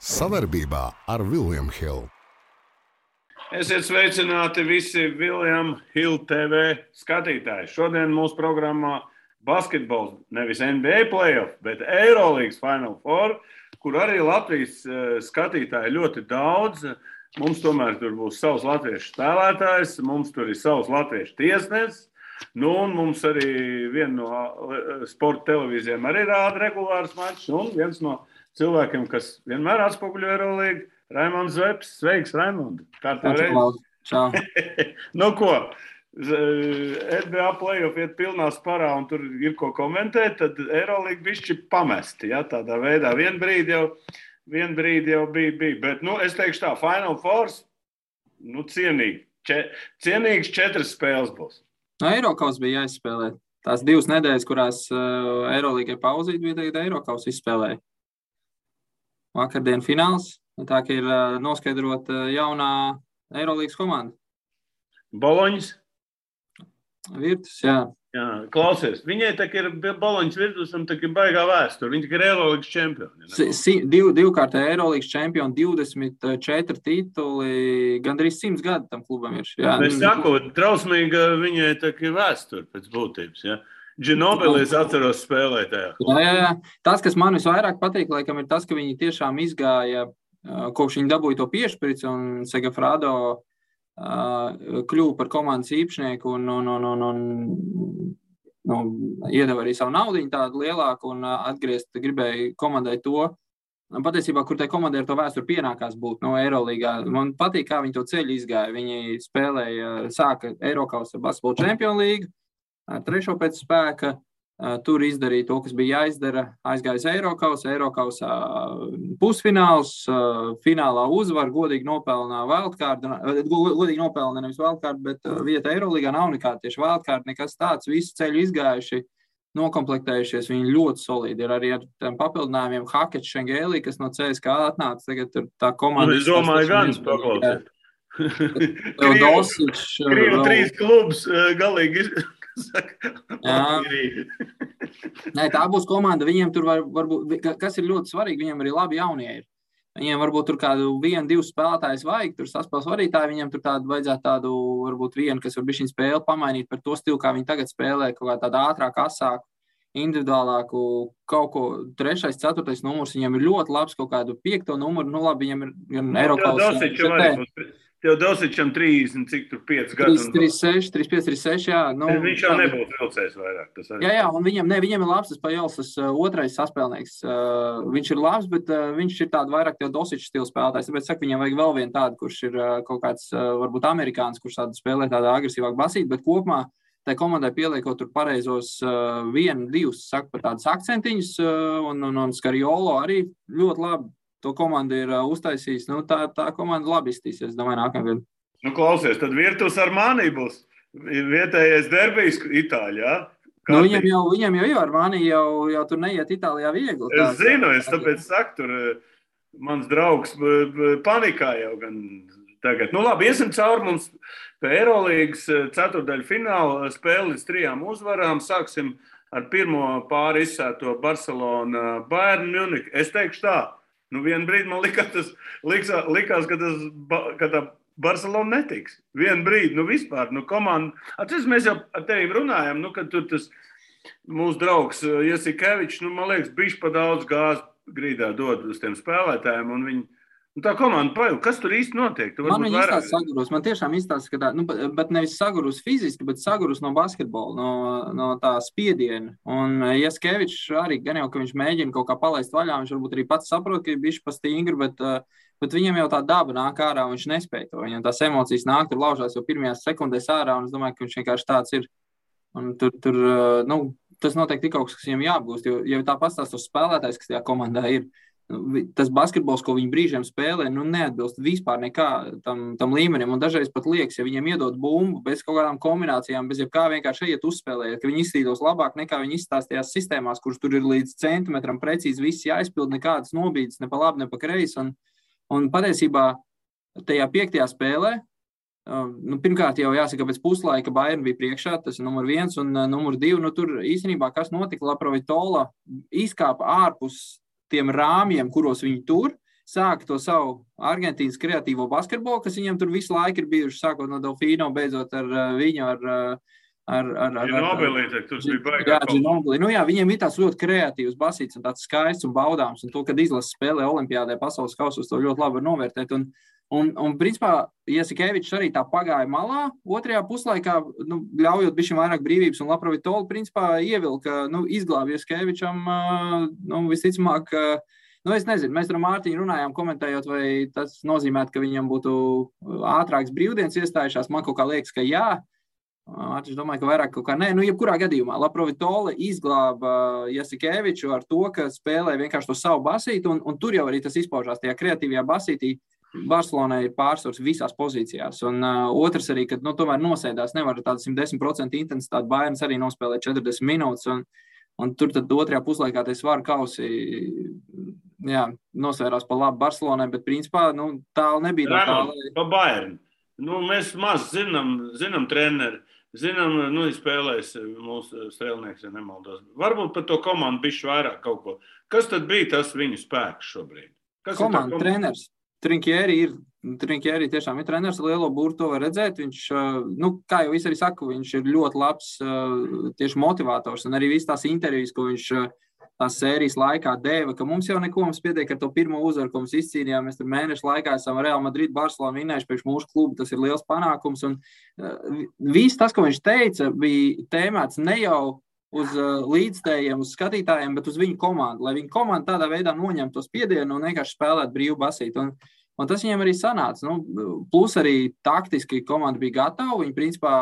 Savarbībā ar William Hill. Esiet sveicināti visi William Hill TV skatītāji. Šodien mūsu programmā basketbols, nevis NBA playoff, bet Eurolīgas Final Four, kur arī Latvijas skatītāji ļoti daudz. Mums tomēr tur būs savs latviešu spēlētājs, mums tur ir savs latviešu tiesnesis. Nu, un mums arī viena no sporta televīzijām arī rāda regulārs mačs. Un viens no cilvēkiem, kas vienmēr atspoguļo Eurolīgu, Raimonds Zepes. Sveiks, Raimond! Kā tev reiz? Čau! Nu ko, NBA playoff iet pilnā sparā un tur ir ko komentēt, tad Eurolīga bišķi pamesti, ja, tādā veidā. Vien brīdi jau bija. Bet, nu, es teikšu tā, Final Four, nu, cienīgs 4 spēles būs. No Eirokaus bija jāizspēlē. Tās 2 nedēļas, kurās Eurolīgai pauzīt, bija tagad Eirokaus izspēlēja. Vakardien fināls, tā ka ir noskaidrot jaunā Eurolīgas komanda. Boloņas? Virtus, jā. Jā, klausies, viņai tā ir Boloņas Virtus un tā ir baigā vēsture. Viņa ir Eurolīgas čempioni. Divkārtē Eurolīgas čempioni, 24 tituli, gandrīz 100 gadu tam klubam ir. Jā. Es saku, drausmīga viņai tā ir vēsture pēc būtības, ja. Ginobili es atceros spēlētajā. Jā. Tas, kas man visvairāk patīk, laikam, ir tas, ka viņi tiešām izgāja, kopš viņi dabūja to piešprici un Segafrado kļuva par komandas īpašnieku un iedeva arī savu naudiņu tādu lielāku un atgriezt gribēja komandai to. Patiesībā, kur tai komandai ar to vēsturi pienākās būt no Eurolīgā. Man patīk, kā viņi to ceļu izgāja. Viņi spēlēja, sāka Eirokaus basketbola čempionu līgu, 3. pēc spēka. Tur izdarīja to, kas bija jāizdara, aizgājis Eirokausā pusfināls, finālā uzvar, godīgi nopelnā wildcard, godīgi nopelnā nevis wildcard, bet vieta Eurolīgā nav nekāda tieši wildcard, nekas tāds, visu ceļu izgājuši, nokomplektējušies, viņi ļoti solidi ir arī ar tiem papildinājumiem Hakets Šengēlī, kas no CSKA atnāca, tagad tur tā komanda. Es domāju, gan paklausīt. Krievu 3 klubs galīgi Nē, tā būs komanda, viņiem tur varbūt, kas ir ļoti svarīgi, viņiem arī labi jaunie ir. Viņiem varbūt tur kādu 1-2 spēlētājus vajag, tur saspēles vadītāji, viņiem tur vajadzētu tādu, varbūt vienu, kas var bišķiņ spēli pamainīt par to stilu, kā viņi tagad spēlē, kaut kā tādu ātrāku, asāku, individuālāku, kaut ko 3., 4. numurs, viņiem ir ļoti labs, kaut kādu 5. numuru, nu labi, viņiem ir gan Eirokaus. Tev Dosičam 30, cik tur 5 gadu. 35, jā. Nu, viņš jau nebūtu vilcējis vairāk. Jā, un viņam ir labs, tas Pajels, tas 2. saspēlnieks. Viņš ir labs, bet viņš ir tādu vairāk tev Dosiču stilu spēlētājs. Tāpēc saku, viņam vajag vēl vienu tādu, kurš ir kaut kāds, varbūt amerikāns, kurš tādu spēlē tādā agresīvāk basīt, bet kopumā tai komandai pieliekot tur pareizos 1-2, saku, par tādus akcentiņus, un Skariolo arī ļoti labi. To komanda ir uztaisījis. Nu, tā komanda labi iztīsies, domāju, nākamgad. Nu, klausies, tad Virtus Armani būs vietējais derbijs Itālijā. Nu, viņam jau Armani jau tur neiet Itālijā viegli. Es zinu, tāpēc saku, tur mans draugs panikā jau gan tagad. Nu, labi, iesim cauri mums pie Eurolīgas 4. fināla spēli līdz 3 uzvarām. Sāksim ar pirmo pāri izsēto Barcelona Bayern Munich. Es teikšu tā. Nu, vienu brīdi man likās, ka tā Barcelona netiks. Vienu brīdi, nu vispār, nu komanda. Atceries, mēs jau ar tevi runājam, nu, kad tur tas mūsu draugs Jasikevičs, nu, man liekas, bišķi pa daudz gāzi grīdā dod uz tiem spēlētājiem, un viņi, nu, tā komanda pajūg. Kas tur īsti notiek? Man viņi izstāsta sagurus, man tiešām izstāsta, ka tā, nu, bet nevis sagurus fiziski, bet sagurus no basketbola, no tā spiediena. Un Jasikevičs arī, gan jau, ka viņš mēģina kaut kā palaist vaļā, viņš varbūt arī pats saprot, ka ir bišķi pa stingri, bet viņam jau tā daba nāk ārā, un viņš nespēj to. Viņam tās emocijas nāk, tur laužās jau pirmajās sekundēs ārā, un es domāju, ka viņš vienkārši tāds ir. Un tur nu, tas noteikti ir kaut kas viņam jāapgūst, jo tā pastāst uz spēlētājs, kas tajā komandā ir. Tas basketbols, ko viņi brīžiem spēlē, nu neatbilst vispār nekā tam līmenim. Un dažreiz pat liekas, ja viņiem iedod bumbu bez kaut kādām kombinācijām, bez jebkā vienkārši iet uzspēlēt, ka viņi izstīdos labāk nekā viņi izstāstījās sistēmās, kuras tur ir līdz centimetram precīzi viss jāizpild, nekādas nobīdes, ne pa labi, ne pa kreisi. Un patiesībā tajā 5. spēlē, nu, pirmkārt jau jāsaka, pēc puslaika Bayern bija priekšā, tas ir numur 1 un numur 2. Nu, tur īstenībā, kas notika, Laprovitola izkāpa ārpus tiem rāmjiem, kuros viņi tur, sāka to savu Argentīnas kreatīvo basketbolu, kas viņam tur visu laiku ir bijuši, sākot no Delfino, beidzot ar viņu, Ginobili, tur bija baigā. Ginobili. Nu jā, viņiem ir tāds ļoti kreatīvs basīts un tāds skaists un baudāms, un to, kad izlases spēlē Olimpiādē pasaules kausos, to ļoti labi var novērtēt. Un principā, Jasikevičs arī tā pagāja malā, otrajā puslaikā, ļaujot bišķi vairāk brīvības, un Laprovitoli, principā, ievilka, izglāba Jasikevičam, visticamāk, es nezinu, mēs ar Mārtiņu runājām, komentējot, vai tas nozīmētu, ka viņam būtu ātrāks brīvdienas iestājušās, man kaut kā liekas, ka jā, es domāju, ka vairāk kaut kā nē, jebkurā gadījumā, Laprovitoli izglāba Jasikeviču ar to, ka spēlē vienkārši to savu basīti, un tur jau arī tas izpaužās tajā kreatīvajā basītī. Barcelonai ir pārsvars visās pozīcijās, un otrs arī, kad tomēr nosēdās, nevar tādu 110% intensitāti, Bayerns arī nospēlē 40 minūtes, un tur tad otrajā puslaikā tie svaru kausi, jā, nosvērās pa labu Barcelonai, bet principā, tālu nebija tā tālu. Pa Bayern. Mēs maz zinām treneri, zinām, spēlēs mūsu strēlnieks, ja nemaldos. Varbūt par to komandu bišķi vairāk kaut ko. Kas tad bija tas viņu spēks šobrīd? Komanda, treneris. Trinkieri tiešām ir treneris, lielo būru to var redzēt. Viņš, kā jau es arī saku, viņš ir ļoti labs tieši motivators, un arī viss tās intervijas, ko viņš tās sērijas laikā deva, ka mums jau neko mums pietiek ar to pirmo uzvaru, ko mums izcīnījām. Mēs tur mēnešu laikā esam Real Madrid, Barcelona vinnējuši priekš mūsu klubu, tas ir liels panākums, un viss tas, ko viņš teica, bija tēmēts ne jau uz līdzstējiem, uz skatītājiem, bet uz viņu komandu, lai viņu komanda tādā veidā noņem to spiedienu un vienkārši spēlēt brīvu basīti. Un tas viņiem arī sanāca. Plus arī taktiski komanda bija gatava, viņi principā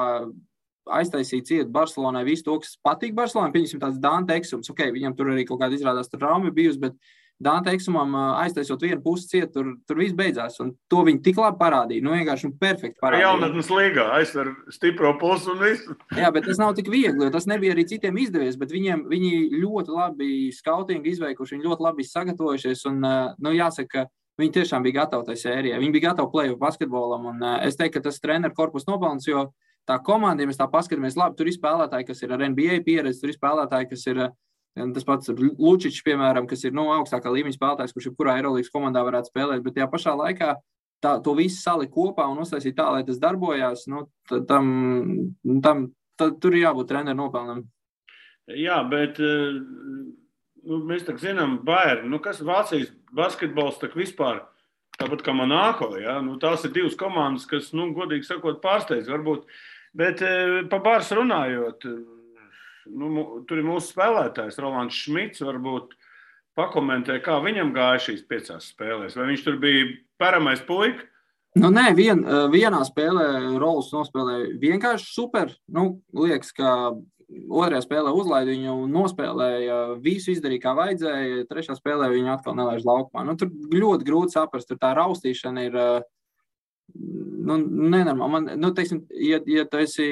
aiztaisīja ciet Barcelonai visu to, kas patīk Barcelonai, pieņemsim tāds Dante Eksums, viņam tur arī kaut kāda izrādās traumi bijusi, bet Dante Eksumam aiztaisot vienu pusi ciet, tur viss beidzās, un to viņi tik labi parādīja, vienkārši perfekti parādīja. Jaunatnes līgā aizver stipro pusi un visu. Jā, bet tas nav tik viegli, jo tas nebija arī citiem izdevies, bet viņi ļoti labi skautingu izveikuši, viņi ļoti labi sagatavojušies, un jāsaka, ka viņi tiešām bija gatavi tai sērijai, viņi bija gatavi play-off basketbolam, un es teiktu, ka tas treneru korpus nopelns, jo tā komanda, ja mēs tā paskatāmies, labi, tur ir spēlētāji, kas ir ar NBA pieredzi, tur ir spēlētāji, kas ir tas pats Lučičs, piemēram, kas ir augstākā līmeņa spēlētājs, kurš jebkurā Eirolīgas komandā varētu spēlēt, bet tajā pašā laikā to visu salika kopā un uztaisīt tā, lai tas darbojās, tur ir jābūt treneru nopelnam. Jā, bet mēs tā zinām, Bayern, kas Vācijas basketbols tak vispār, tāpat kā Monako, ja? Tās ir divas komandas, kas, godīgi sakot, pārsteidz varbūt, bet pa Bārs runājot, tur ir mūsu spēlētājs, Rolands Šmits, varbūt pakomentē, kā viņam gāja šīs 5 spēlēs. Vai viņš tur bija paramais puika? Nē, vienā spēlē Rolands nospēlēja vienkārši super. Liekas, ka otrajā spēlē uzlaida viņu un nospēlēja, visu izdarīja, kā vajadzēja. Trešā spēlē viņu atkal nelaiž laukumā. Tur ļoti grūti saprast, tur tā raustīšana ir nenormāli. Teiksim, ja tu esi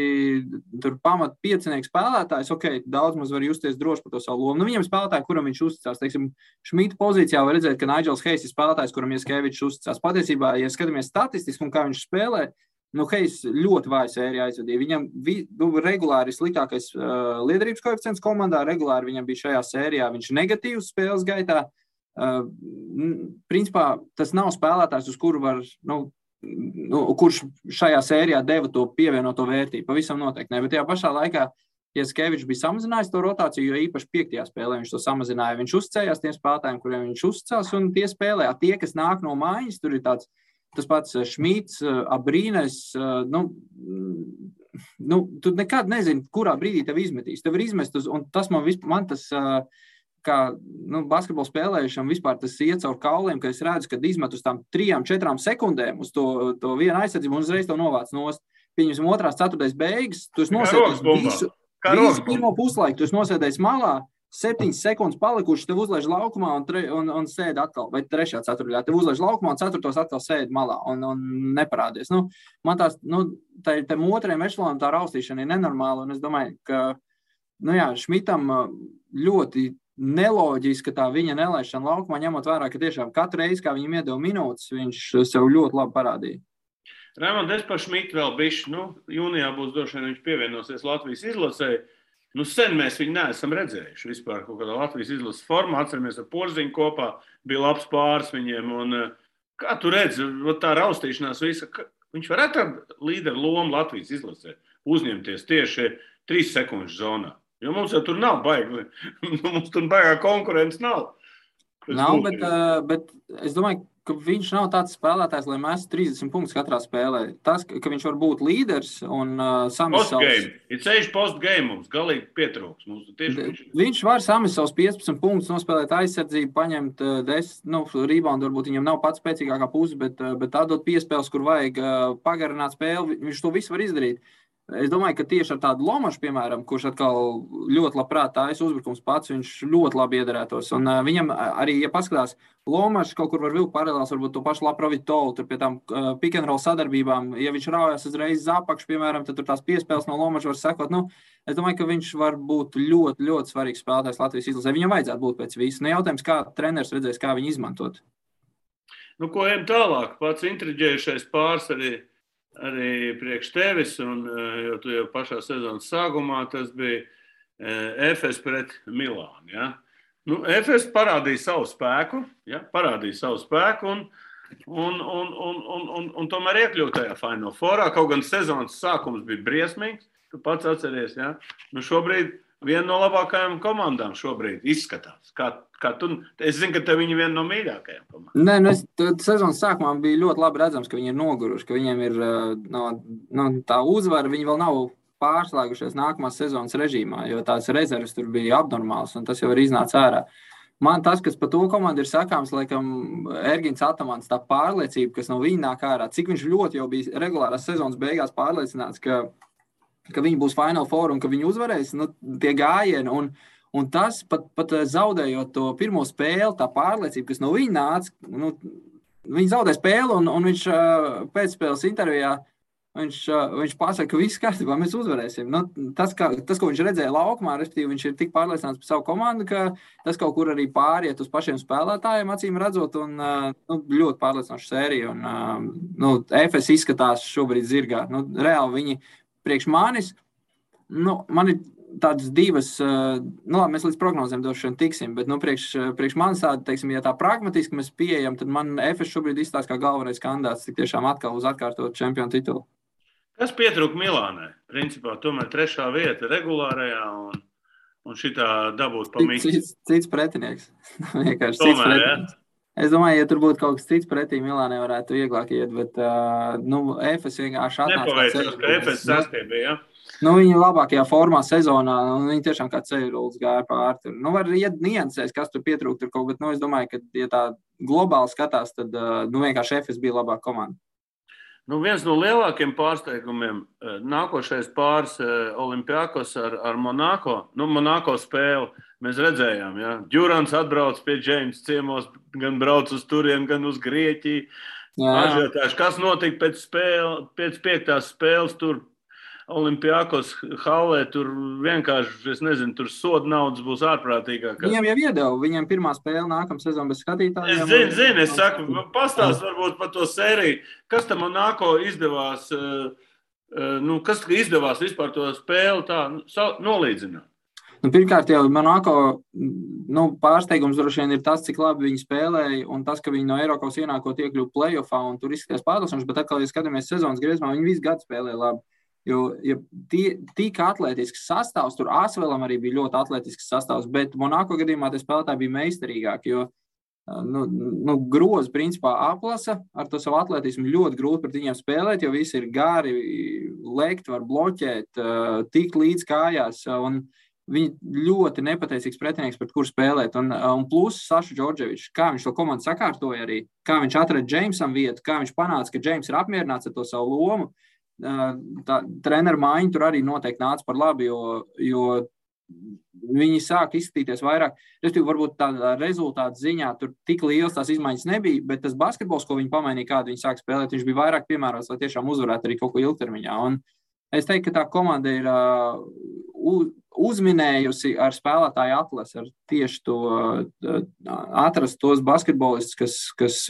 tur pamat piecinieks spēlētājs, daudz maz var justies droši par to savu lomu. Viņam spēlētāji, kuram viņš uzticās, teiksim, Šmita pozīcijā var redzēt, ka Nigels Hayes ir spēlētājs, kuram Jasikevičs uzticās. Patiesībā, ja skatāmies statistiski un kā viņš spēlē, Hayes ļoti vāju sēriju aizvadīja. Viņam regulāri sliktākais liederības koeficients komandā, regulāri viņam bija šajā sērijā, viņš negatīvs spēles gaitā. Principā, tas nav spēlētājs, uz kuru var, kurš šajā sērijā deva to pievienoto vērtību. Pavisam noteikti ne, bet tajā pašā laikā Jasikevičs bija samazinājis to rotāciju, jo īpaši 5. spēlē viņš to samazināja. Viņš uzticējās tiem spēlētājiem, kuriem viņš uzticās, un tie spēlē. Tie, kas nāk no mājas, tur ir tas pats Šmits, Abrīnes, tu nekad nezini, kurā brīdī tev izmetīs. Tev ir izmest, un tas man tas, kā basketbolu spēlējušam vispār tas iet caur kauliem, ka es redzu, kad izmet uz tām 3-4 sekundēm uz to vienu aizsardzību un uzreiz to novāc nost. Pieņemsim 2. ceturtais beigas, tu esi nosēdējis visu pirmo puslaiku, tu esi nosēdējis malā, 7 sekundes palikuši, tev uzlaiž laukumā un sēd atkal, vai 3. ceturtajā, tev uzlaiž laukumā un 4. atkal sēd malā un neparādies. Man tās, tam otrajam ešalonam tā raustīšana ir nenormāla, un es domāju, ka, Šmitam ļoti neloģiski, ka tā viņa nelaišana laukumā, ņemot vērā, ka tiešām katru reizi, kā viņam iedeva minūtes, viņš sev ļoti labi parādīja. Raimond, es par Šmitu vēl bišķi, jūnijā būs droši vien viņš pievienosies Latvijas izlasēji. Nu, sen mēs viņu neesam redzējuši vispār kaut kādā Latvijas izlases formā. Atceramies, ar Porziņu kopā bija labs pāris viņiem. Un, kā tu redzi, tā raustīšanās visa, viņš varētu tādu līderu lomu Latvijas izlasē uzņemties tieši 3 sekundžu zonā. Jo mums jau tur nav baigi, mums tur baigā konkurence nav. Nav, bet es domāju, ka viņš nav tāds spēlētājs, lai mēs 30 punktus katrā spēlē. Tas, ka viņš var būt līderis un samest savus... Ir ceļš postgame mums, galīgi pietrūks. Viņš var samest savus 15 punktus, nospēlēt aizsardzību, paņemt 10, reboundu, varbūt viņam nav pats spēcīgākā puse, bet tādot piespēles, kur vajag pagarināt spēli, viņš to visu var izdarīt. Es domāju, ka tieši ar tādu Lomašu, piemēram, kurš atkal ļoti labprāt tājas uzbrukums pats, viņš ļoti labi iedarētos. Un viņam arī, ja paskatās, Lomašs kaut kur var vilkt paralēls, varbūt to pašu Laprovitovu, tur pie tām pick and roll sadarbībām, ja viņš raujās uzreiz zapakšu, piemēram, tad tur tās piespēles no Lomaša var sekot. Es domāju, ka viņš var būt ļoti, ļoti svarīgs spēlētājs Latvijas izlasē. Viņam vajadzētu būt pēc visu. Jautājums, kā treneris redzēs, kā viņu izmantot. Ko ejam tālāk? Pats intriģējušais pāris arī priekš tevis, un jo tu jau pašā sezonas sākumā tas bija Efes pret Milānu. Ja? Efes parādīja savu spēku, un tomēr iekļūt tajā Final Fourā, kaut gan sezonas sākums bija briesmīgs, tu pats atceries, ja? Šobrīd viena no labākajām komandām šobrīd izskatās. Kā tu, es zinu, ka tev viņi viena no mīļākajām komandām. Nē, sezonas sākumā bija ļoti labi redzams, ka viņi ir noguruši, ka viņiem ir tā uzvara, viņi vēl nav pārslēgušies nākamās sezonas režīmā, jo tās rezerves tur bija abnormāls, un tas jau ir iznāca ārā. Man tas, kas par to komandu ir sakāms, laikam, Ergins Atamans, tā pārliecība, kas no viņa nāk ārā, cik viņš ļoti jau bija regulārās sezonas beigās pārliecināts, ka viņi būs Final Four un ka viņi uzvarēs, tie gājieni. Un tas, pat zaudējot to pirmo spēli, tā pārliecība, kas no viņa nāca, viņi zaudē spēli un viņš pēcspēles intervijā, viņš pasaka, ka viss kārtībā, mēs uzvarēsim. Tas, ko viņš redzēja laukumā, respektīvi, viņš ir tik pārliecināts par savu komandu, ka tas kaut kur arī pāriet uz pašiem spēlētājiem, acīm redzot, un ļoti pārliecinoša sērija. Efes izskatās šobrīd zirgā. Reāli viņi priekš manis, man ir tādas divas, mēs līdz prognozēm došana tiksim, bet priekš manis tāda, teiksim, ja tā pragmatiski mēs pieejam, tad man Efes šobrīd izstāsta kā galvenais kandidāts tik tiešām atkal uz atkārtot čempionu titulu. Kas pietrūka Milānai? Principā tomēr 3. vieta regulārajā un šitā dabūt pa mītu. Cits pretinieks. Vienkārši cits pretinieks. Es domāju, ja tur būtu kaut kas cits pretī, Milānai varētu vieglāk iet, bet Efes vienkārši atnāca. Nepaveicās, ka Efes sastiebīja, ja? Viņa labākajā formā sezonā, viņa tiešām kā ceļrulis gāja pār tur. Var iet niansēs, kas tur pietrūkt tur kaut, bet es domāju, ka, ja tā globāli skatās, tad vienkārši Efes bija labāka komanda. Viens no lielākiem pārsteigumiem nākošais pāris Olimpiakos ar Monako. Monako spēli mēs redzējām, ja? Džurans atbrauc pie Džeims ciemos, gan brauc uz turien, gan uz Grieķiju. Ažiotāši, kas notika pēc 5. spēles tur Olimpiakos hallē, tur vienkārši, es nezinu, tur soda naudas būs ārprātīgāk. Viņam jau iedeva, viņam pirmā spēle nākamā sezona bez skatītājiem. Es zinu, es saku, pastāst varbūt par to sēriju. Kas tam Monako izdevās, kas izdevās vispār to spēli tā nolīdzināt? Pirmkārt jau Monako pārsteigums droši vien ir tas, cik labi viņi spēlēja, un tas, ka viņi no Eiropas ienākot iekļuva playoffā, un tur izskatījās pārliecinoši, bet atkal, ja skatāmies sezonas griezumā, viņi visu gadu spēlēja labi. Jo tik atletisks sastāvs, tur Asvelam arī bija ļoti atletisks sastāvs, bet Monako gadījumā tie spēlētāji bija meistarīgāki, jo grozi principā aplasa ar to savu atletismu ļoti grūti pret viņiem spēlēt, jo visi ir gari, lekt, var bloķēt, tikt līdz kājās, un viņi ļoti nepateicīgs pretinieks, pret kur spēlēt. Un plus Sašu Džordževičs, kā viņš to komandu sakārtoja arī, kā viņš atrada Džeimsam vietu, kā viņš panāca, ka Džeims ir apmierināts ar to savu lomu. Treneru maiņa tur arī noteikti nāca par labi, jo viņi sāk izskatīties vairāk. Respektīvi, varbūt tādā rezultāta ziņā tur tik liels tās izmaiņas nebija, bet tas basketbols, ko viņi pamainīja, kādu viņi sāk spēlēt, viņš bija vairāk piemērots, lai tiešām uzvarētu arī kaut ko ilgtermiņā. Un es teiktu, ka tā komanda ir uzminējusi ar spēlētāju atlasi, ar tieši to atrast tos basketbolistus, kas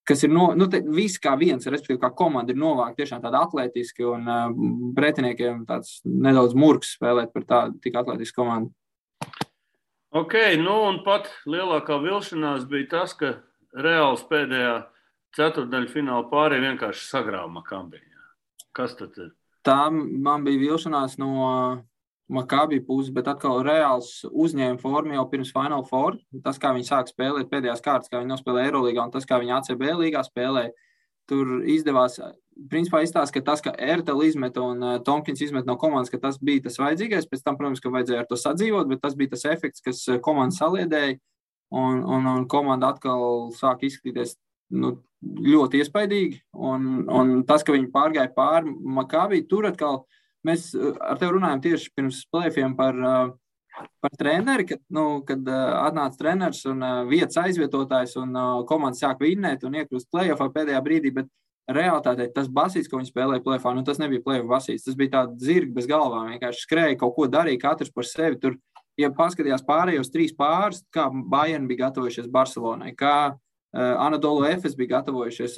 kas ir viss kā viens, respektīvi, kā komanda ir novākta tiešām tāda atlētiski un pretiniekiem tāds nedaudz murgs spēlēt par tādu tik atletisku komandu. Ok, un pat lielākā vilšanās bija tas, ka Reāls pēdējā ceturtdaļfināla pārī vienkārši sagrāva Makabi. Kas tad ir? Tā man bija vilšanās no Makabi puses, bet atkal Reāls uzņēma formu jau pirms Final Four. Tas, kā viņi sāk spēlēt pēdējās kārtas, kā viņi nospēlē Eirolīgā un tas, kā viņi ACB līgā spēlē, tur izdevās, principā izstāst, ka tas, ka Ertel izmet un Tomkins izmet no komandas, ka tas bija tas vajadzīgais. Pēc tam, protams, ka vajadzēja ar to sadzīvot, bet tas bija tas efekts, kas komanda saliedēja un komanda atkal sāk izskatīties ļoti iespaidīgi. Un tas, ka viņi pārgāja pāri Makabi, tur atkal mēs ar tevi runājam tieši pirms play-offiem par treneri, kad atnāca treneris un vietas aizvietotājs un komanda sāk vinnēt un iekļūst play-offā pēdējā brīdī, bet realitātē tas basīts, ko viņi spēlēja play-offā, tas nebija play-off basīts, tas bija tāds zirgi bez galvām, vienkārši skrēja, kaut ko darīja, katrs par sevi. Tur, ja paskatījās pārējos 3 pārus, kā Bayern bija gatavojušies Barcelonai, kā Anadolu Efes bija gatavojušies,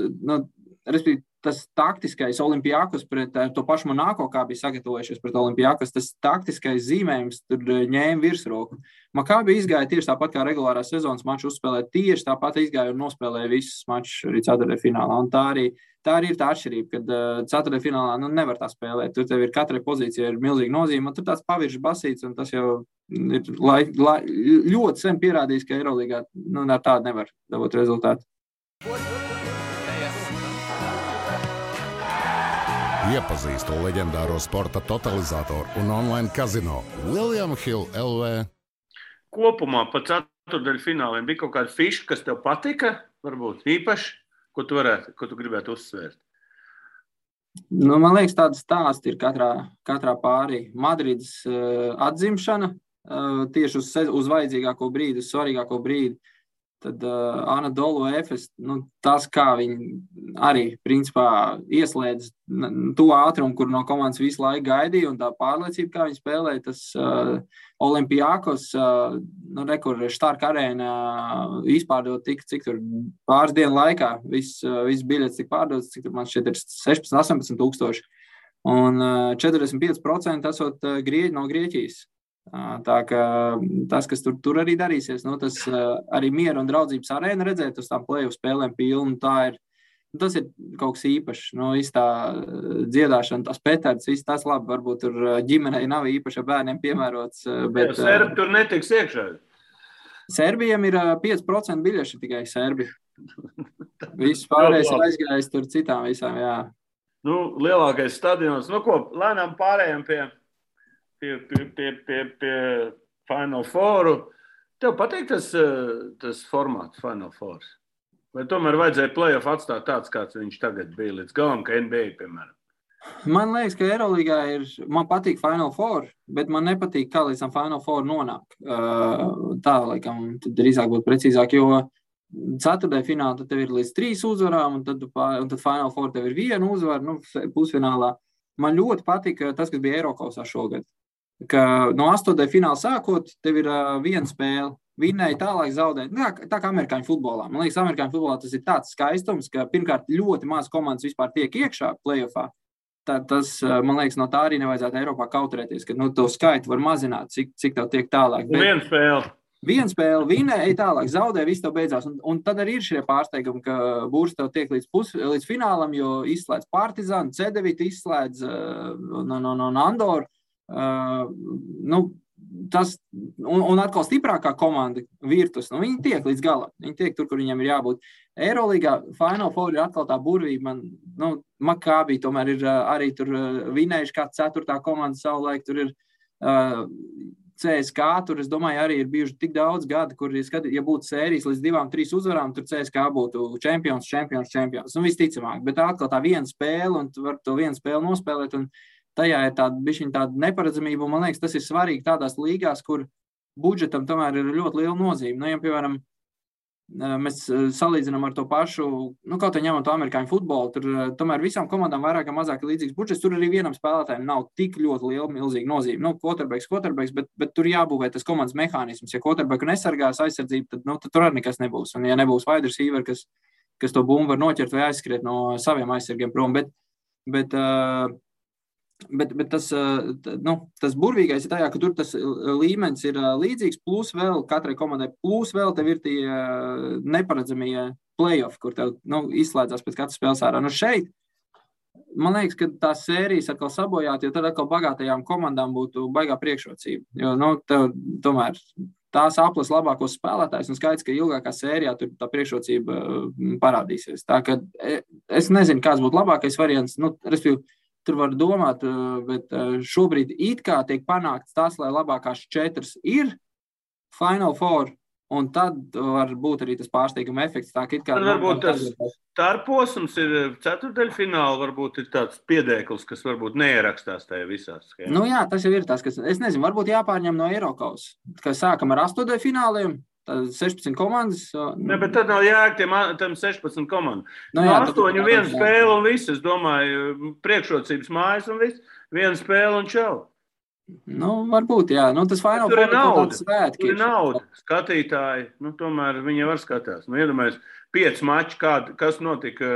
respektīvi, tas taktiskais Olimpiakos pret to pašu Monako, kā bija sagatavojušies pret Olimpiakos, tas taktiskais zīmējums tur ņēma virsroku. Makabi izgāja tieši tāpat kā regulārā sezonas maču uzspēlēt, tieši tāpat izgāja un nospēlēja visus mačus arī ceturtdaļfinālā. Un tā arī ir tā atšķirība, kad ceturtdaļfinālā nevar tā spēlēt. Tur tev ir katrai pozīcija ir milzīga nozīme, un tur tāds paviršs basīts, un tas jau ir ļoti sen pierādījis, ka Eirolīgā ar tādu nevar dabūt rezultātu. Iepazīstu leģendāro sporta totalizatoru un online kazino William Hill LV. Kopumā pa ceturtdaļfināliem bija kaut kāda fiša, kas tev patika, varbūt īpaši, ko tu gribētu uzsvērt? Man liekas, tāda stāsta ir katrā pārī. Madrides atzimšana tieši uz vajadzīgāko brīdi, uz svarīgāko brīdi. Tad Anadolu Efes, tas, kā viņi arī, principā, ieslēdz to ātrumu, kur no komandas visu laiku gaidīja, un tā pārliecība, kā viņi spēlēja, tas Olimpiakos, kur Stark arēna izpārdot cik tur pāris dienu laikā, viss biļets tik pārdots, cik tur man šeit ir 16-18 tūkstoši, un 45% esot grieķi no Grieķijas. Tā kā tas, kas tur arī darīsies, tas arī miera un draudzības arēna redzēt uz tām play-off spēlēm pilnu, tas ir kaut kas īpašs. Tā dziedāšana, tas petards, viss tas labi, varbūt tur ģimenei nav īpaši bērniem piemērots. Bet, Serbi tur netiks iekšā. Serbijam ir 5% biļeši tikai Serbi. Viss pārējais ir aizgājis tur citām visām, jā. Lielākais stadions. Lēnām pārējām pie Final Fouru. Tev patīk tas formāts Final Fours? Vai tomēr vajadzēja play-off atstāt tāds, kāds viņš tagad bija līdz galam, ka NBA, piemēram? Man liekas, ka Eirolīgā man patīk Final Four, bet man nepatīk, kā līdz tam Final Four nonāk. Tā, laikam, tad drīzāk būtu precīzāk, jo ceturtdaļfinālā tad tev ir līdz 3 uzvarām, un tad Final Four tev ir 1 uzvara, pusfinālā. Man ļoti patika tas, kas bija Eirokausā šogad. Ka no 8. fināla sākot, tev ir 1 spēle, vinnēja tālāk zaudēt. Tā kā amerikāņu futbolā. Man liekas, amerikāņu futbolā tas ir tāds skaistums, ka pirmkārt ļoti maz komandas vispār tiek iekšā play-offā. Tas, man liekas, no tā arī nevajadzētu Eiropā kautrēties, ka to skaitu var mazināt, cik tev tiek tālāk. Bet 1 spēle, vinnēja tālāk, zaudē, viss tev beidzās. Un tad arī ir šie pārsteigumi, ka Būrs tev tiek līdz finālam, jo izslēdz Partizanu, C9 izslēdz no Andoru. Tas, un atkal stiprākā komanda Virtus, viņi tiek līdz galam, viņi tiek tur, kur viņiem ir jābūt. Eirolīgā Final Four ir atkal tā burvība, Makabi tomēr ir arī tur vinējuši kā 4. komanda savulaik, tur ir CSK, tur es domāju arī ir bijuši tik daudz gadi, kur, ja būtu sērijas līdz 2-3 uzvarām, tur CSK būtu čempions, visticamāk, bet atkal tā 1 spēle, un tu var to 1 spēli nospēlēt, un tajā ir tāda neparedzamība, un man liekas, tas ir svarīgi tādās līgās, kur budžetam tomēr ir ļoti liela nozīme. Ja, piemēram, mēs salīdzinām ar to pašu, kaut vai ņemam to amerikāņu futbolu, tur tomēr visām komandām vairāk vai mazāk līdzīgs budžets, tur arī vienam spēlētājiem nav tik ļoti liela, milzīga nozīme. Quarterbacks, bet tur jābūvē tas komandas mehānisms. Ja quarterbacku nesargās aizsardzību, tad tur arī nekas nebūs. Un ja nebūs wide receiver, kas kas to bumbu var noķert vai aizskriet no saviem aizsargiem prom. Bet tas burvīgais ir tajā, ka tur tas līmenis ir līdzīgs, plus vēl katrai komandai, plus vēl tev ir tie neparedzamie play-off, kur tev izslēdzās pēc katras spēles ārā. Šeit, man liekas, ka tās sērijas atkal sabojāt, jo tad atkal bagātajām komandām būtu baigā priekšrocība. Jo, tev tomēr tās aplas labākos spēlētājs, un skaidrs, ka ilgākā sērijā tur tā priekšrocība parādīsies. Tā ka es nezinu, kāds būtu labākais variants, respektīvi, tur var domāt, bet šobrīd it kā tiek panākts tas, lai labākās 4 ir Final Four, un tad var būt arī tas pārsteiguma efekts. Tā, ka tad varbūt tas starposms ir ceturtdaļfināli, varbūt ir tāds piedēklis, kas varbūt neierakstās tajā visās. Jā, tas jau ir tas, kas, es nezinu, varbūt jāpārņem no Eirokaus, ka sākam ar 8 fināliem, 16 komandas. Ne, bet tad nav jēga tam 16 komandu. 8-1 spēle un viss, es domāju, priekšrocības mājas un viss, 1 spēle un čau. Varbūt, jā. Tas Final Four ir tāds svētki. Tur ir nauda. Skatītāji, tomēr viņi var skatās. Iedomājies, 5 mači, kas notika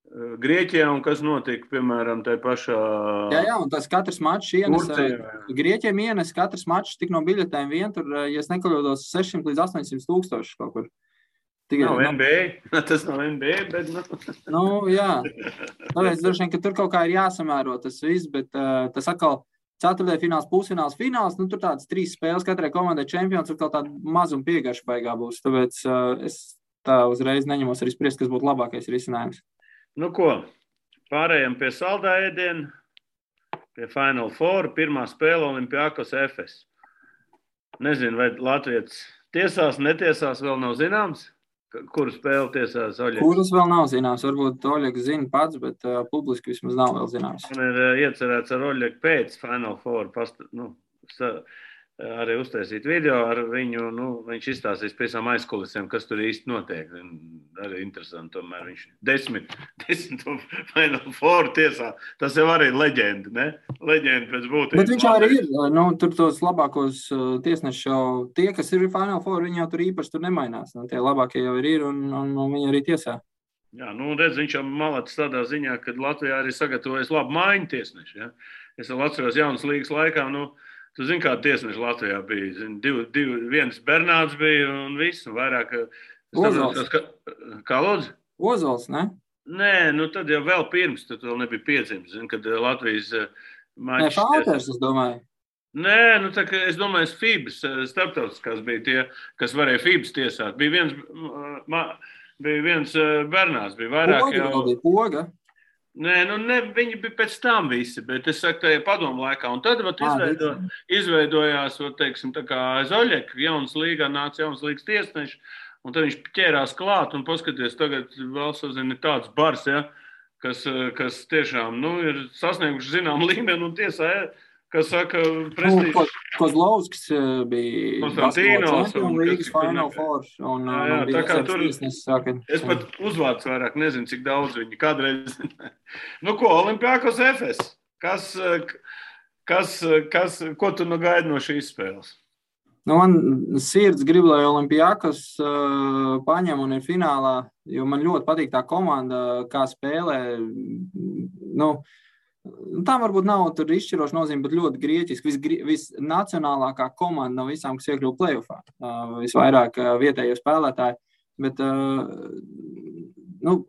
Grieķijā un kas notika, piemēram, tajā pašā... Jā, un tas katrs mačs ienes, Grieķiem ienes katrs mačs tik no biļetēm vien, tur, ja es nekļūdos, 600 līdz 800 tūkstoši kaut kur. Nav NBA, tas nav NBA, bet... Jā, tāpēc droši vien, ka tur kaut kā ir jāsamēro tas viss, bet tas atkal ceturtdaļfināls, pusfināls, fināls, tur tādas 3 spēles katrai komandai čempions, tur kaut tāda mazuma piegarša baigā būs, tāpēc es tā uzreiz neņemos arī spriest, kas būtu labākais risinājums. Ko, pārējām pie saldā ēdiena, pie Final Four, pirmā spēle Olimpiakos Efes. Nezinu, vai Latvijas tiesās, netiesās, vēl nav zināms, kuru spēli tiesās Oļegs. Kuras vēl nav zināms, varbūt Oļegs zina pats, bet publiski vismaz nav vēl zināms. Man ir iecerēts ar Oļegu pēc Final Four, arī uztaisīt video ar viņu, viņš izstāstīs pēc tam aizkulisēm, kas tur īsti notiek. Arī interesanti, tomēr viņš 10 Final Four tiesā. Tas jau arī leģenda, ne? Leģenda pēc būtības. Bet viņš arī ir, tur tos labākos tiesneši jau, tie, kas ir Final Four, viņi jau tur īpaši tur nemainās. Tie labākie jau ir un viņi arī tiesā. Jā, redz, viņš jau malacis tādā ziņā, kad Latvijā arī sagatavojas labu maiņu tiesneši. Ja? Es vēl atceros jaunas līgas laikā, tu zini, kāda tiesneša Latvijā bija. Viens Bernāds bija un viss, un vairāk... Ozols. Kā lūdzu? Ozols, ne? Nē, tad jau vēl pirms, tad vēl nebija piedzimis, kad Latvijas mačs... Nē, Falters, es domāju. Nē, tā kā es domāju, FIBAS starptautiskās bija tie, kas varēja FIBAS tiesāt. Bija viens Bernāds, bija vairāk Poga, jau... Bija Poga. Nē, viņi bija pēc tam visi, bet es saku, tajā padomu laikā. Un tad izveidojās, teiksim, tā kā aiz Oļeka, jaunas līgā nāca jaunas līgas tiesneši, un tad viņš ķērās klāt un paskaties, tagad vēl sazina tāds bars, ja, kas tiešām, ir sasnieguši zinām līmeni un tiesā, kas saka, prestīžs. Kozlovskis bija Konstantīnos un līgas Final Four. Tā kā tur, es pat uzvārds vairāk nezinu, cik daudz viņi kādreiz. Olimpiakos Efes. Ko tu gaidi no šīs spēles? Man sirds grib, lai Olimpiakos paņem un ir finālā, jo man ļoti patīk tā komanda, kā spēlē. Tam varbūt nav tur izšķiroša nozīme, bet ļoti grieķiski. Visnacionālākā komanda no visām, kas iekļuva play-offā. Visvairāk vietējo spēlētāji. Bet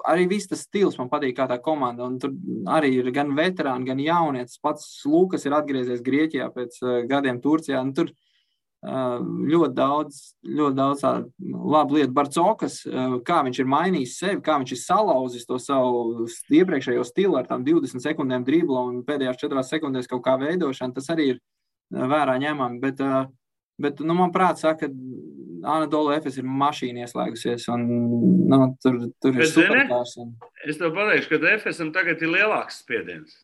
arī viss tas stils man patīk kā tā komanda. Un tur arī ir gan veterāni, gan jaunietis. Pats Lukas ir atgriezies Grieķijā pēc gadiem Turcijā. Un tur ļoti daudz labu lietu. Barcokas, kā viņš ir mainījis sevi, kā viņš ir salauzis to savu iepriekšējo stilu ar tām 20 sekundēm dribla un pēdējās 4 sekundēs kaut kā veidošana, tas arī ir vērā ņemami. Bet man prāt saka, ka Anadolu Efes ir mašīna ieslēgusies un tur ir superkārs. Es tev pateikšu, ka Efesam tagad ir lielāks spiediens.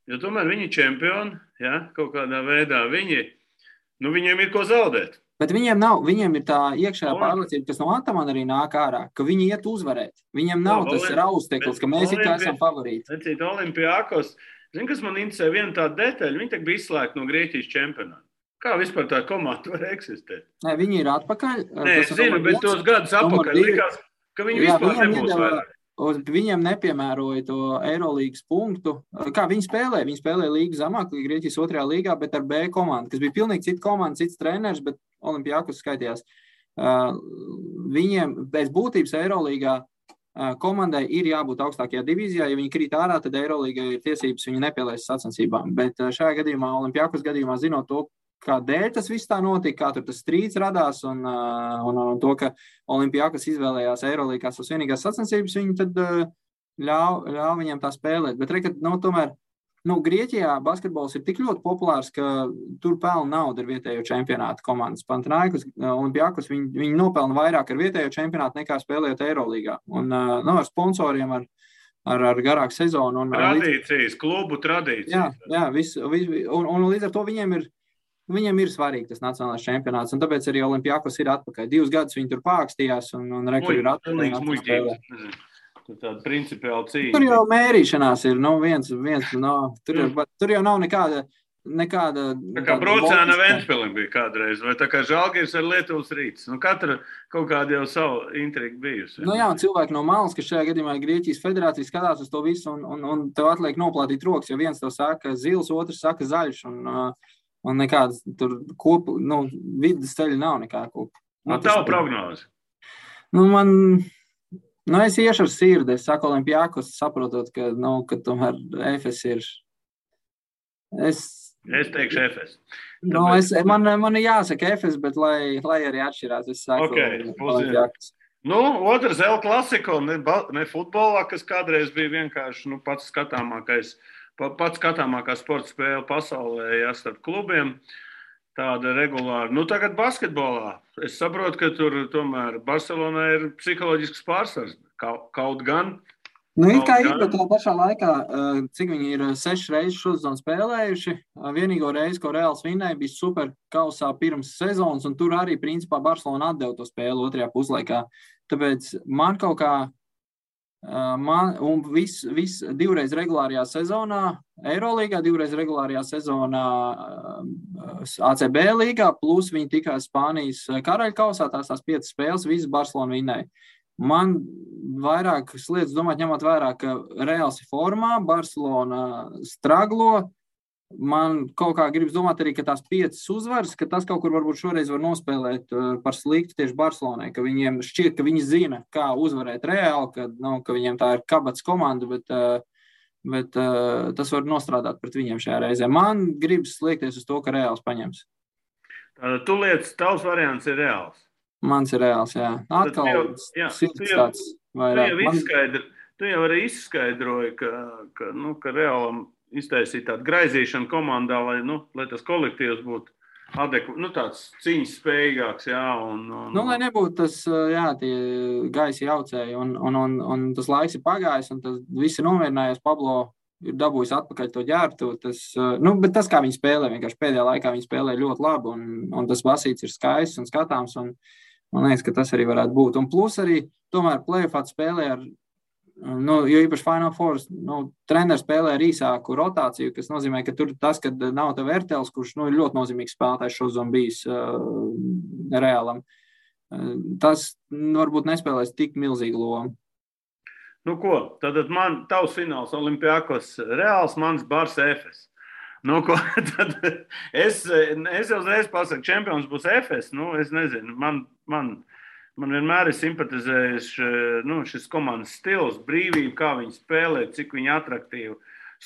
Jo tomēr viņi čempioni, ja, kaut kādā veidā viņiem ir ko zaudēt. Bet viņiem ir tā iekšējā pārliecība, kas no Atamana arī nāk ārā, ka viņi iet uzvarēt. Viņiem nav tas rausteklis, ka mēs it kā esam favorīti. Olimpiakos, zini, kas man interesē, viena tāda detaļa, viņi tagad bija izslēgti no Grieķijas čempionāta. Kā vispār tā komanda var eksistēt? Nē, viņi ir atpakaļ. Nē, es zinu, bet tos gadus atpakaļ likās, ka viņi vispār nebūs vairāk. Viņiem nepiemēroja to Eirolīgas punktu. Kā viņi spēlēja? Viņi spēlēja līgu zemāk, Grieķijas 2. līgā, bet ar B komandu, kas bija pilnīgi cita komanda, cits treneris, bet Olimpiakos skaitījās. Viņiem pēc būtības Eirolīgā komandai ir jābūt augstākajā divīzijā. Ja viņi krīt ārā, tad Eirolīgai ir tiesības viņu nepielaist sacensībām. Bet šajā gadījumā, Olimpiakos gadījumā, zinot to, kādēļ tas viss tā notika, kā tur tas strīds radās un to, ka Olimpiakos izvēlējās Eirolīgā savas vienīgās sacensības, viņi tad ļauj viņiem tā spēlēt. Bet tomēr, Grieķijā basketbols ir tik ļoti populārs, ka tur pelna naudu ar vietējo čempionātu komandas. Panathinaikos, Olimpiakos, viņi nopelna vairāk ar vietējo čempionātu nekā spēlējot Eirolīgā. Un ar sponsoriem, ar garāku sezonu. Tradīcijas, klubu tradīcijas. Jā, un līdz ar to Viņiem ir svarīgi tas nacionālais čempionāts, un tāpēc arī Olimpiakos ir atpakaļ. 2 gadus viņi tur pākstījās, un rekuri ir atpakaļ. Tāda principiāla cīņa. Tur jau mērīšanās ir, tur jau nav nekāda... Tā kā Brocēna Ventspilim bija kādreiz, vai tā kā Žalgiris ar Lietuvas Rīts. Katra kaut kāda jau savu intrigu bijusi. Jā, un cilvēki no malas, kas šajā gadījumā Grieķijas federācija skatās uz to visu, un tev atliek noplātīt rokas, jo viens tev saka zils, otrs saka zaļš, un nekādas tur vidas ceļa nav nekā kopu. Tavu prognozi? Es iešu ar sirdi. Es saku Olimpiakos, saprotot, ka tomēr Efes ir... Es teikšu Efes. Man ir jāsaka Efes, bet lai arī atšķirās, es saku Olimpiakos. Otrs El Clasico, ne futbolā, kas kādreiz bija vienkārši pats skatāmākā sporta spēle pasaulē, starp klubiem, tāda regulāra. Tagad basketbolā. Es saprotu, ka tur tomēr Barcelonā ir psiholoģisks pārsvars. Kaut gan. Ir kā ir, bet tā pašā laikā, cik viņi ir 6 reizes šodien spēlējuši, vienīgo reizi, ko Reāls vinnēja, bija super kausā pirms sezonas, un tur arī, principā, Barcelona atdeva to spēli otrajā puslaikā. Tāpēc man kaut kā un viss 2 reizes regulārajā sezonā Eirolīgā, 2 reizes regulārajā sezonā ACB līgā, plus viņi tikās Spānijas karaļkausā, tās 5 spēles, visas Barcelona vinnēja. Man vairāk lietas domāt, ņemot vērā, ka Reāls ir formā, Barcelona straglo. Man kaut kā gribas domāt arī, ka tās 5 uzvaras, ka tas kaut kur varbūt šoreiz var nospēlēt par sliktu tieši Barcelonai, ka viņiem šķiet, ka viņi zina, kā uzvarēt Reāli, ka viņiem tā ir kabats komanda, bet tas var nostrādāt pret viņiem šajā reizē. Man gribas liekties uz to, ka Reāls paņems. Tu lietas, tavs variants ir Reāls? Mans ir Reāls, jā. Atkal sirds tāds vairāk. Tu jau arī izskaidroji, ka Reālam iztaisīt tādu graizīšanu komandā, lai tas kolektīvs būtu tāds cīņas spējīgāks, jā. Lai nebūtu tas, tie gaisi jaucēji, un tas laiks ir pagājis, un tas viss ir nomierinājies. Pablo ir dabūjis atpakaļ to ģērbtu. Bet tas, kā viņi spēlē, vienkārši pēdējā laikā viņi spēlē ļoti labi, un tas basīts ir skaists un skatāms, un man liekas, ka tas arī varētu būt. Un plus arī, tomēr play-offā spēlē ar jo īpaši Final Four, treneris spēlē ar īsāku rotāciju, kas nozīmē, ka tur tas, kad nav tev Ertels, kurš ir ļoti nozīmīgs spēlētājs šodien bijis Reālam, tas varbūt nespēlēs tik milzīgu lomu. Tad tavs fināls Olimpiakos Reāls, mans Bars Efes. Tad es jau uzreiz pasaku, čempions būs Efes, es nezinu, man vienmēr ir simpatizējis šis komandas stils, brīvība, kā viņi spēlē, cik viņi atraktīvi.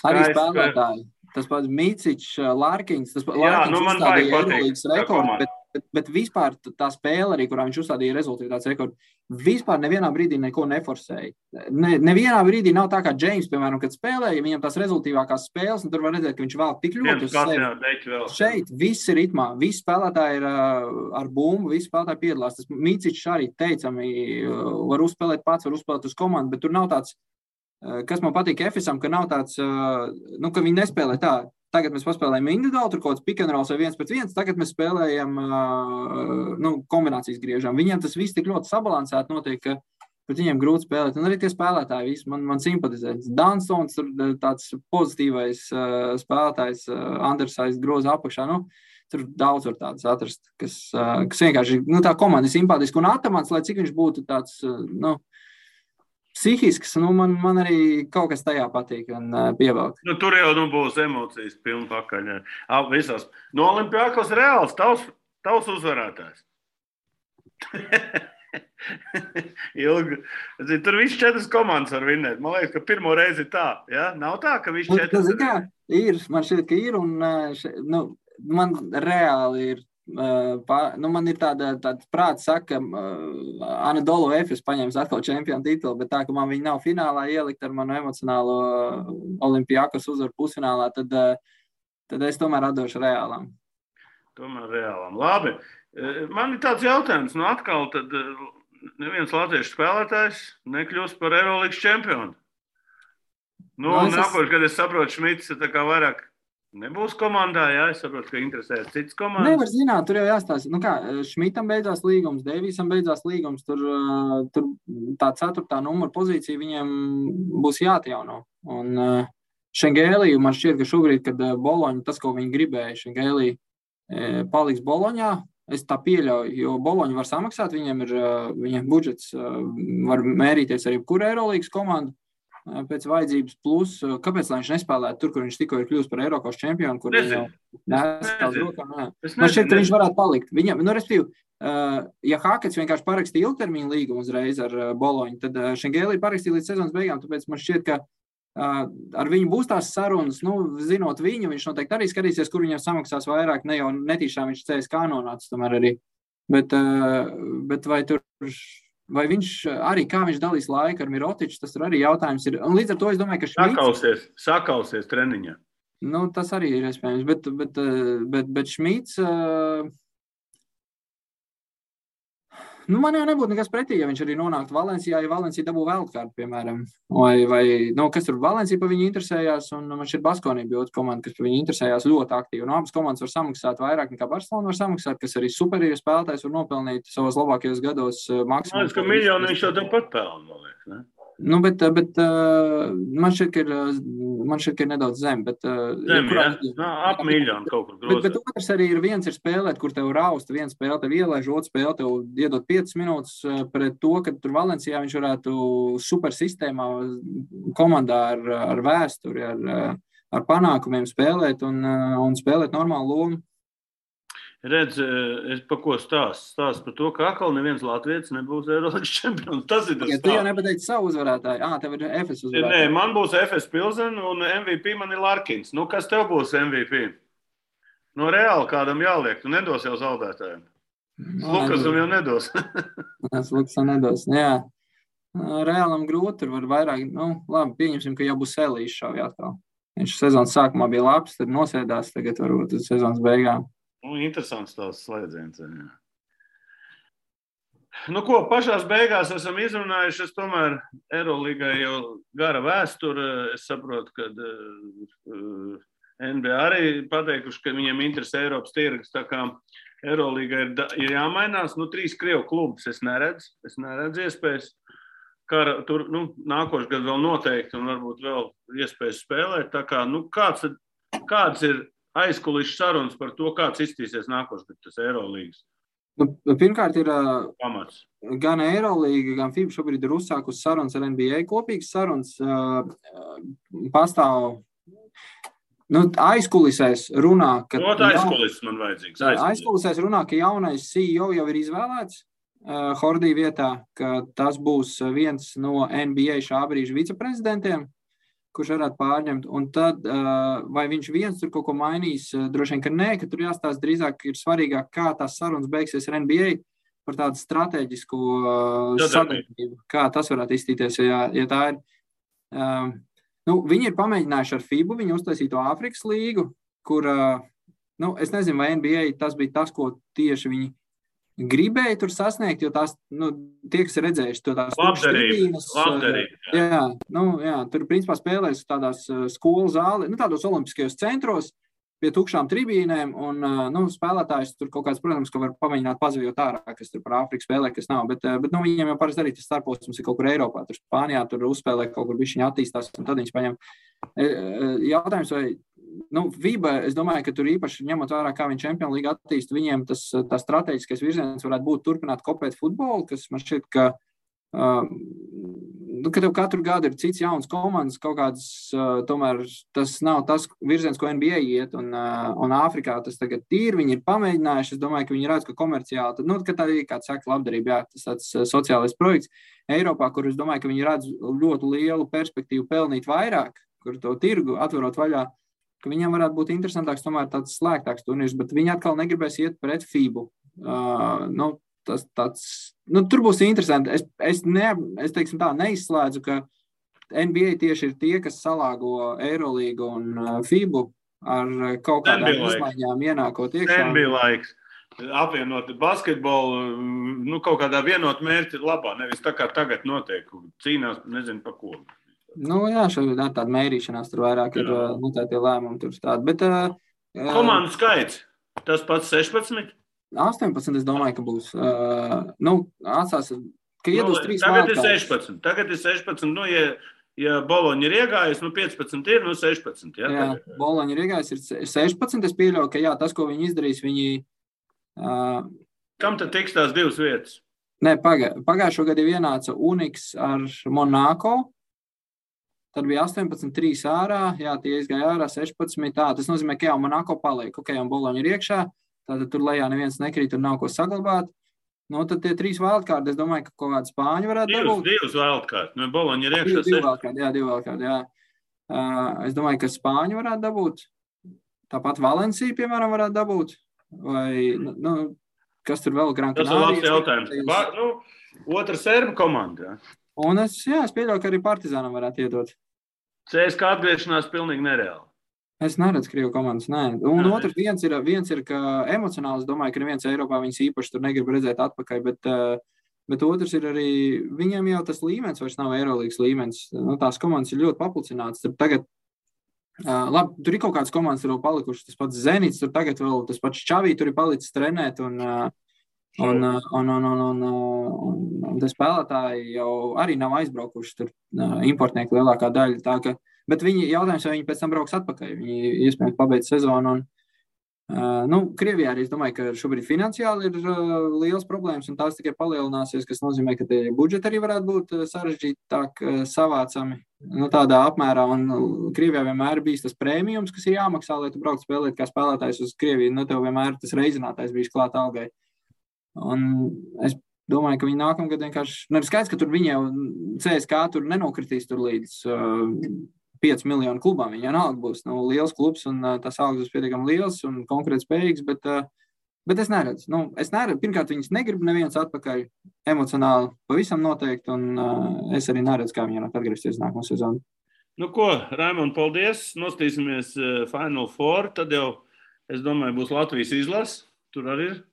Arī spēlētāji. Tas pats Micičs, Larkins, Larkins uzstādīja Eirolīgas rekordu, bet vispār tā spēle arī, kurā viņš uzstādīja rezultātāts rekordu, vispār nevienā brīdī neko neforsēja. Nevienā brīdī nav tā kā James, piemēram, kad spēlēja, viņam tās rezultīvākās spēles, un tur var redzēt, ka viņš vēl tik ļoti uz sevi. Šeit viss ir ritmā, visi spēlētāji ir ar bumbu, visi spēlētāji piedalās. Tas Micičs arī teicami var uzspēlēt pats, var uzspēlēt uz komandu, bet tur nav tāds, kas man patīk Efesam, ka nav tāds, ka viņi nespēlē tā. Tagad mēs paspēlējam individuāli, tur kaut kāds pick and rolls vai 1-1, tagad mēs spēlējam kombinācijas griežam. Viņiem tas viss tik ļoti sabalansēti notiek, ka pret viņiem grūti spēlēt. Un arī tie spēlētāji visi man simpatizē. Dunstons, tāds pozitīvais spēlētājs, Andersais groza apakšā. tur daudz var tādas atrast, kas vienkārši, tā komanda ir simpātiska un Atamans, lai cik viņš būtu tāds, psihisks, man arī kaut kas tajā patīk un pievelk. Tur jau būs emocijas pilni pakaļ. Visās. No Olimpiakos Reāls, tavs uzvarētājs. Ilgi. Tur viss 4 komandas var vinnēt. Man liekas, ka pirmo reizi ir tā. Ja? Nav tā, ka viss 4. Ir. Man šķiet, ka ir. Un, man reāli ir. Man ir tāda prāta saka, Anadolu Efes paņems atkal čempionu titulu, bet tā, ka man viņi nav finālā ielikt ar manu emocionālo Olimpiakos uzvaru pusfinālā, tad es tomēr atdošu Reālam. Labi. Man ir tāds jautājums, atkal tad neviens latviešu spēlētājs nekļūst par Eirolīgas čempionu. Nākošais, kad es saprotu, Šmits tā kā vairāk nebūs komandā, jā, es saprotu, ka interesēs citas komandas. Nevar zināt, tur jau jāstāsta. Šmitam beidzās līgums, Deivīsam beidzās līgums, tur tā 4. numura pozīcija viņiem būs jāatjauno. Un Šengēliju man šķiet, ka šobrīd, kad Boloņa, tas, ko viņi gribēja, Šengēlija paliks Boloņā, es tā pieļauju, jo Boloņa var samaksāt, viņiem budžets var mērīties arī kura Eirolīgas komanda pēc vajadzības, plus, kāpēc lai viņš nespēlētu tur, kur viņš tikko ir kļūst par Eiropas čempionu, kur viņš jau nestāv rokām. Man šķiet, ka viņš varētu palikt. Viņam, respektīvi, ja Hakets vienkārši parakstīja ilgtermiņu līgumu uzreiz ar Boloņu, tad Šengēlija parakstīja līdz sezonas beigām, tāpēc man šķiet, ka ar viņu būs tās sarunas, zinot viņu, viņš noteikti arī skatīsies, kur viņam samaksās vairāk, ne jau netīšām viņš CSK nonācis tomēr arī. Bet vai viņš arī, kā viņš dalīs laiku ar Mirotiču, tas tur arī jautājums ir. Un līdz ar to es domāju, ka Šmits... Sakausies treniņā. Tas arī ir iespējams, bet Šmits... man jau nebūtu nekas pretī, ja viņš arī nonāktu Valencijā, ja Valencija dabū wildcard, piemēram. Vai kas tur Valencija pa viņu interesējās, un man šķiet Baskonija bija otra komanda, kas pa viņu interesējās ļoti aktīvi. Un abas komandas var samaksāt vairāk nekā Barcelona var samaksāt, kas arī superīri spēlētājs var nopelnīt savos labākajos gados maksimums. Ka miljonu viņš jau tāpat pelna, man liekas, ne? Bet man šķiet, ka ir nedaudz zem. Ap miljonu kaut kur grozīt. Bet otrs arī viens ir spēlēt, kur tev rausta, viens spēle tev ielaiž, otrs spēle tev iedot 5 minūtes pret to, ka tur Valencijā viņš varētu super sistēmā komandā ar vēsturi, ar panākumiem spēlēt un spēlēt normālu lomu. Redz, es pa ko stāstu par to, ka atkal neviens latvietis nebūs Eirolīgas čempions. Tas ir tas stāsts. Tu jau nepateici savu uzvarētāju. Tev ir Efes uzvarētāju. Nē, man būs Efes Pilsen un MVP man ir Larkins. Kas tev būs MVP? No Reāli kādam jāliek. Tu nedos jau zaudētājiem. Lukasam jau nedos. Lukasam nedos, jā. Reālam grūti, tur var vairāk. Labi, pieņemsim, ka jau būs Elīšs šauj atkal. Viņš sezonas sākumā bija labs, tad nosēdās, tagad varbūt uz sezonas beigām. Interesants tās slēdziens. Pašās beigās esam izrunājuši, es tomēr Eirolīgai jau gara vēsture. Es saprotu, ka NBA arī pateikuši, ka viņiem interesē Eiropas tirgus, tā kā Eirolīgai ir jāmainās. 3 Krievu klubus es neredzu iespējas. Tur nākošais gads vēl noteikti un varbūt vēl iespējas spēlēt. Tā kā, kāds ir aizkulisku sarunas par to, kāds izstīsies nākošais tas Eirolīgas? Pirmkārt ir pamats. Gan Eirolīga, gan FIBA šobrīd ir uzsākusi sarunas ar NBA. Kopīgas sarunas pastāv aizkulisēs runā, ka... aizkulis man vajadzīgs. Aizkulisēs runā, ka jaunais CEO jau ir izvēlēts Hordī vietā, ka tas būs viens no NBA šā brīža viceprezidentiem, kurš varētu pārņemt, un tad vai viņš viens tur kaut ko mainīs, droši vien, ka nē, ka tur jāstāsta drīzāk ir svarīgāk, kā tās sarunas beigsies ar NBA par tādu strateģisku sadarbību, kā tas varētu izstīties, ja tā ir. Viņi ir pamēģinājuši ar FIBU, viņi uztaisīja to Āfrikas līgu, kur, es nezinu, vai NBA tas bija tas, ko tieši viņi gribēja tur sasniegt, jo tās, tie, kas ir redzējuši to tās tribīnes. Jā, tur principā spēlēs tādās skolu zāli, tādos olimpiskajos centros pie tukšām tribīnēm, un spēlētājs tur kaut kāds, protams, ka var pamēģināt pazavjot ārā, kas tur par Āfriku spēlē, kas nav, bet viņiem jau parasti arī tas starposms ir kaut kur Eiropā, tur Spānijā, tur uzspēlē kaut kur bišķiņi attīstās, un tad viņš paņem. Jautājums, vai FIBA, es domāju, ka tur īpaši ņemot vērā, kā viņi Champions League attīst, viņiem tā strateģiskais virziens varētu būt turpināt kopēt futbolu, kas man šķiet, ka tev katru gadu ir cits jauns komandas, kaut kāds, tomēr tas nav tas virziens, ko NBA iet, un Āfrikā tas tagad viņi ir pamēģinājuši, es domāju, ka viņi redz, ka komerciāli, ka tā ir, kāds saka, labdarība, jā, tas tāds sociālais projekts Eiropā, kur es domāju, ka viņi redz ļoti lielu perspektīvu pelnīt vairāk, kur to tirgu atverot vaļā, ka viņam varētu būt interesantāks, tomēr tāds slēgtāks turnīrs, bet viņi atkal negribēs iet pret FIBU. Tur būs interesanti. Es teiksim tā, neizslēdzu, ka NBA tieši ir tie, kas salāgo Eirolīgu un FIBU ar kaut kādām izmaiņām ienākot iekšā. NBA laiks. Apvienot basketbolu, kaut kādā vienot mērķi labā, nevis tā kā tagad notiek, cīnās, nezinu pa ko. Jā, šeit tāda mērīšanās tur vairāk ir tie lēmumi tur tādi, bet... Komandu skaits, tas pats 16? 18, es domāju, ka būs. Atstās, ka iedos 3 vārtkārtas. Tagad ir 16, ja Boloņa ir iegājis, 15 ir, 16. Jā, Boloņa ir iegājis, ir 16, es pieļauju, ka tas, ko viņi izdarīs, viņi... Kam tad tiks tās 2 vietas? Nē, pagājušo gadu ienāca Uniks ar Monako, tad bija 18-3 ārā, tie izgāja ārā 16, tas nozīmē, ka jau Monako paliek, un Boloņa ir iekšā, tātad tur lejā neviens nekrīt, tur nav ko saglabāt. Tad tie 3 wildcard, es domāju, ka kaut kādi Spāņi varētu dabūt. 2 wildcard, Boloņa ir iekšā. 2 wildcard, jā. Es domāju, ka Spāņi varētu dabūt. Tāpat Valencija, piemēram, varētu dabūt. Vai, kas tur vēl Gran Canaria? Tas ir labs jautājums. Otra serbu komanda, jā. Un es pieļauju, ka arī Partizānam varētu iedot. CSKA atgriešanās pilnīgi nereāli. Es neredzu Krievu komandas, nē. Un otrs viens ir, ka emocionāli, es domāju, ka neviens Eiropā viņas īpaši tur negrib redzēt atpakaļ, bet otrs ir arī, viņiem jau tas līmenis vairs nav Eirolīgas līmenis. Tās komandas ir ļoti paplicinātas. Tagad, labi, tur ir kaut kādas komandas, tur vēl palikušas, tas pats Zenits, tur tagad vēl tas pats Čavī tur ir palicis trenēt, un tie spēlētāji jau arī nav aizbraukuši tur importnieki lielākā daļa, tā ka, bet jautājums, vai viņi pēc tam brauks atpakaļ, viņi iespējams pabeidz sezonu, un Krievijā arī es domāju, ka šobrīd finansiāli ir liels problēmas, un tās tikai palielināsies, kas nozīmē, ka tie budžeti arī varētu būt sarežģītāk savācami, tādā apmērā, un Krievijā vienmēr bijis tas prēmijums, kas ir jāmaksā, lai tu braukt spēlēt kā spēlētājs uz Krieviju, tev vienmēr tas reizinātājs bijis klāt algai. Un es domāju, ka viņi nākamgad vienkārši... ir skaidrs, ka tur viņi jau CSKA tur nenokritīs tur līdz 5 miljonu klubām. Viņi jau nāk būs liels klubs un tas algas būs pietiekami liels un konkrēti spējīgs, bet es neredzu. Pirmkārt, viņas negrib neviens atpakaļ emocionāli pavisam noteikti, un es arī neredzu, kā viņi atgriezties nākamo sezonu. Raimond, paldies. Nostīsimies Final Four. Tad jau, es domāju, būs Latvijas izlase. Tur arī ir.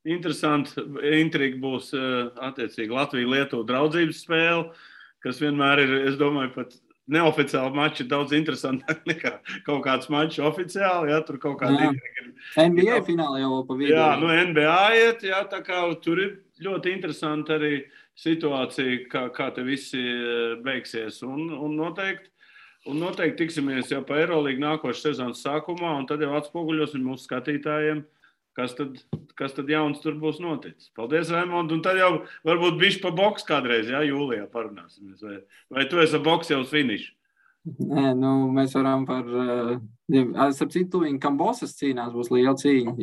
Interesanti, intriga būs attiecīgi Latvija-Lietuva draudzības spēle, kas vienmēr ir, es domāju, pat neoficiāli mači daudz interesantāk nekā kaut kāds mačs oficiāli, tur kaut kāda intriga. NBA fināli jau pa vidu. NBA iet, tā kā tur ir ļoti interesanti arī situācija, kā te visi beigsies, un noteikti tiksimies jau pa Eirolīgu nākošas sezonas sākumā, un tad jau atspoguļosim mūsu skatītājiem, kas tad jauns tur būs noticis. Paldies, Raimond, un tad jau varbūt bišķi pa boks kādreiz, jūlijā parunāsimies. Vai tu esi boks jau uz finišu? Nē, mēs varam par... Starp citu, viņi Kambosas cīnās, būs liela cīņa.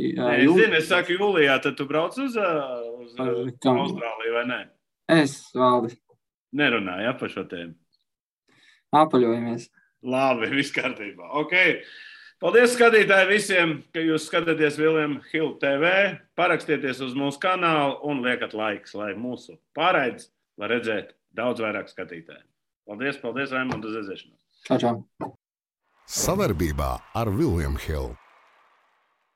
Es saku jūlijā, tad tu brauc uz Austrāliju, vai ne? Es, Valdi. Nerunāju, par šo tēmu. Apaļojamies. Labi, viss kārtībā. Ok. Paldies, skatītāji, visiem, ka jūs skatāties William Hill TV. Parakstieties uz mūsu kanālu un liekat laiks, lai mūsu pārraides var redzēt daudz vairāk skatītāju. Paldies, Raimond, uz redzēšanos. Čau. Savarbībā ar William Hill.